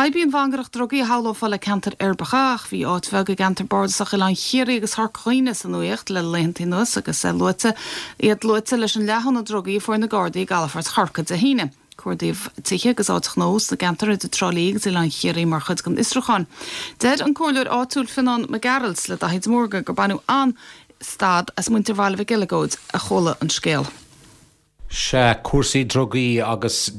Fadhb í an mhangaireacht drugaí a shamhlófá le ceantair uirbeacha ach bhí áit bheag i gceantar bardasach Oileán Chiarraí agus Chorca Dhuibhne sa nuaíocht le laethantaí anuas agus luaite iad luaite leis an leathadh na drugaí a fuair na Gardaí i gcalafort Chorcaí Dé hAoine. Cuardaíodh tithe agus áit ghnó sna gceantar idir Trá Lí agus Oileán Chiarraí mar chuid den fhiosrúchán. Deir an comhairleoir áitiúil Fionnán Mac Gearailt le Daithí de Mórdha gur baineadh an-stad as muintir Bhaile Mhic Eileagóid a chuala an scéal. Sea, cúrsaí drugaí agus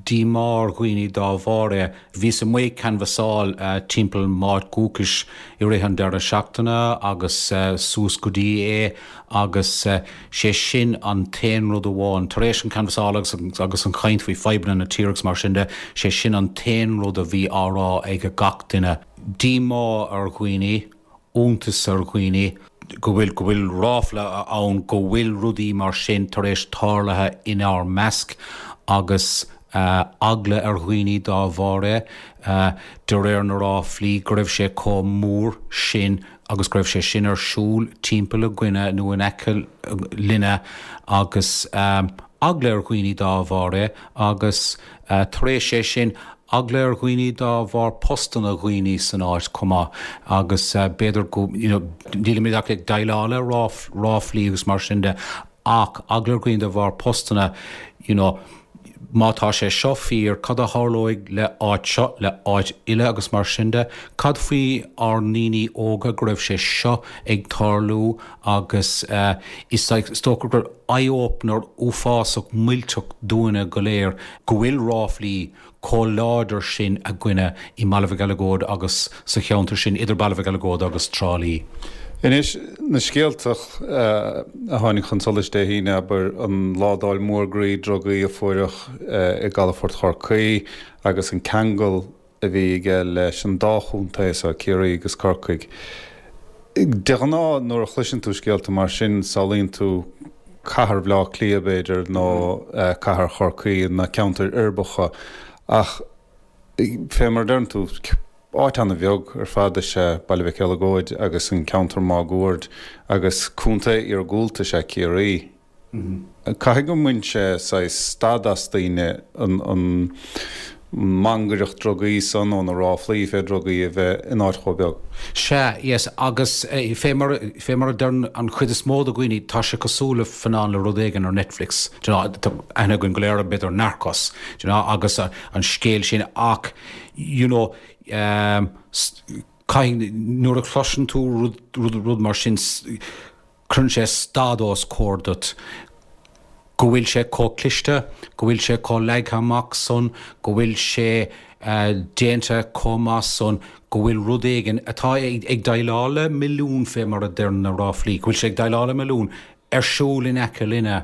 díomá ar dhaoine dá bharr é. Bhíos amuigh ag canbhasáil timpeall m'áit dhúchais i rith an deireadh seachtaine agus suas go dtí é agus sé sin an t-aon rud amháin, tar éis an canbhasáil agus agus an chaint faoi fadhbanna na tíre agus mar sin de, sé sin an t-aon rud a bhí á rá ag gach duine. Díomá ar dhaoine. iontas ar dhaoine go bhfuil, go bhfuil ráfla ann go bhfuil rudaí mar sin tar éis tarlaithe inár measc agus eagla ar dhaoine dá bharr é, de réir na ráflaí, go raibh sé chomh mór sin agus go raibh sé sin ar siúl timpeall againne nó in aice linne agus eagla ar dhaoine dá bharr é agus tar éis é sin Eagla ar dhaoine dá bharr postanna dhaoine san áit chomh maith agus b'fhéidir go, you know, nílimid ach ag déileáil le ráflaí agus mar sin de ach eagla ar dhaoine de bharr postanna, you know, má tá sé seo fíor, cad a tharlóidh le áit seo, le áit eile agus mar sin de. Cad faoi ár ndaoine óga go raibh sé seo ag tarlú agus is dócha gur eye-opener uafásach millteach dúinne go léir go bhfuil ráflaí chomh láidir sin againne i mBaile Mhic Eileagóid agus sa cheantar sin idir Baile Mhic Eileagóid agus Trá Lí. Anois, na scéalta a tháinig chun solais Dé hAoine, abair, an ládáil mhór groí drugaí a fuaireadh i gcalafort Chorcaí agus an ceangal a bhí aige leis an dá chontae so, Ciarraí agus Corcaigh. De ghnáth, nuair a chloiseann tú scéalta mar sin, samhlaíonn tú cathair Bhaile Átha Cliath, b'fhéidir, nó cathair Chorcaí, na ceantair uirbeacha, ach fé mar a deireann tú, áit ana-bheag ar fad is ea Baile Mhic Eileagóid agus an ceantar máguaird, agus contae iargúlta is ea Ciarraí. Caithfidh go mbain sé saghas stad as daoine an mhangaireacht drugaí san nó na ráflaí fé drugaí a bheith in áit chomh beag. Sea, yes, agus fé mar, fé mar a deireann an chuid is mó de dhaoine, tá sé cosúil le Fionnán le rud éigin ar Netflix, do you know, tá aithne againn go léir ar b'fhéidir Narcos, do you know, agus an scéal sin ach, you know, caithfidh, nuair a chloiseann tú rud, rud, rud mar sin, Cuireann sé stad os comhair duit go bhfuil sé chomh cliste, go bhfuil sé chomh leagtha amach san, go bhfuil sé déanta chomh maith san, go bhfuil rud éigin atá ag déileáil le milliún fé mar a deir na ráflaí, go bhfuil sé ag déileáil le milliún ar siúl in aice linne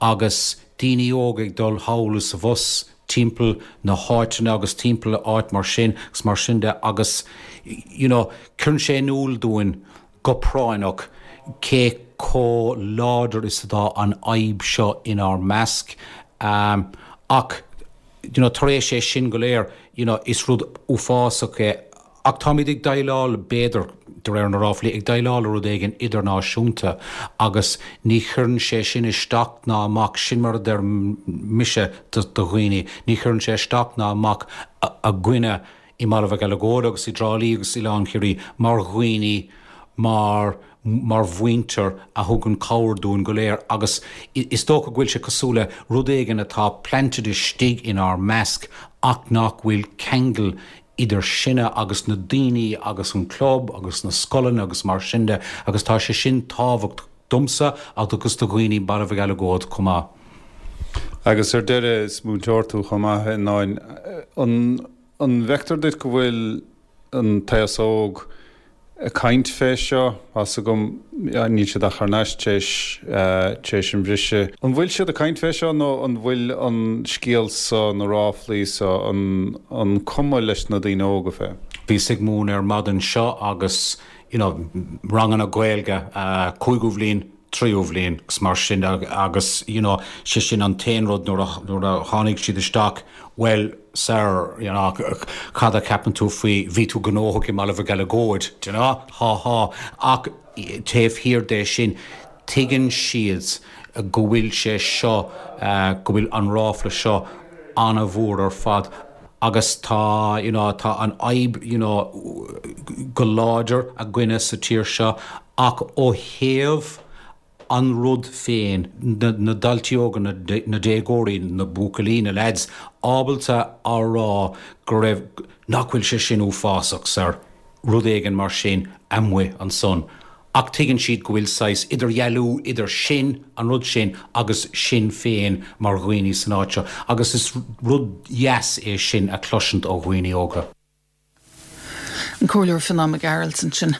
agus daoine óga ag dul thall is abhus timpeall na háiteanna agus timpeall áit mar sin agus mar sin de agus you know cuireann sé in iúl dúinn go práinneach cé chomh láidir is atá an fhadhb seo inár measc. Ach you know tar éis é sin go léir you know is rud uafásach é ach táimid ag déileáil, b'fhéidir, de réir na ráflaí, ag déileáil le rud éigin idirnáisiúnta agus ní chuireann sé sin isteach ná amach, sin mar a deir mise do dhaoine, ní chuireann sé isteach ná amach againne i mBaile Mhic Eileagóid agus i dTrá Lí agus Oileán Chiarraí mar dhaoine, mar mar mhuintir a thugann cabhair dúinn go léir agus is dócha go bhfuil sé cosúil le rud éigin atá planted istigh inár measc ach nach bhfuil ceangal idir sinne agus na daoine agus an club agus na scoileanna agus mar sin de agus tá sé sin tábhachtach domsa agus do dhaoine Baile Mhic Eileagóid chomh maith. Agus ar deireadh, is múinteoir tú chomh maith, a Fhionnáin. An. An bhfeictear duit go bhfuil an t-aos óg ag caint fé seo? Tá's agam, níl siad ach thar n-ais tar éis an bhriseadh. An bhfuil siad ag caint fé seo nó an bhfuil an scéal so, na ráflaí so, an cuma leis na daoine óga fé? Bhíos ag múineadh ar maidin seo agus, you know, ranganna Gaeilge, cúigiú bhliain, tríú bhliain agus mar sin de agus you know sé sin an t-aon rud nuair a nuair a tháinig siad isteach well sir you know cad a cheapann tú faoi bhí tú gnóthach i mBaile Mhic Eileagóid do you know há há ach taobh thiar de sin tuigeann siad go bhfuil sé seo go bhfuil an ráfla seo an-mhór ar fad. Agus tá, you know, tá an fhadhb, you know, go láidir againne sa tír seo ach ó thaobh an rud féin, na daltaí óga, na déagóirí, na buachaillí, na leaids, ábalta a rá go raibh, nach bhfuil sé sin uafásach, sir, rud éigin mar sin amuigh ansan. Ach tuigeann siad go bhfuil saghas idirdhealú idir sin, an rud sin, agus sinn féin mar dhaoine san áit seo. Agus is rud dheas é sin a chloisint ó dhaoine óga. An Comhairleoir Fionán Mac Gearailt ansin.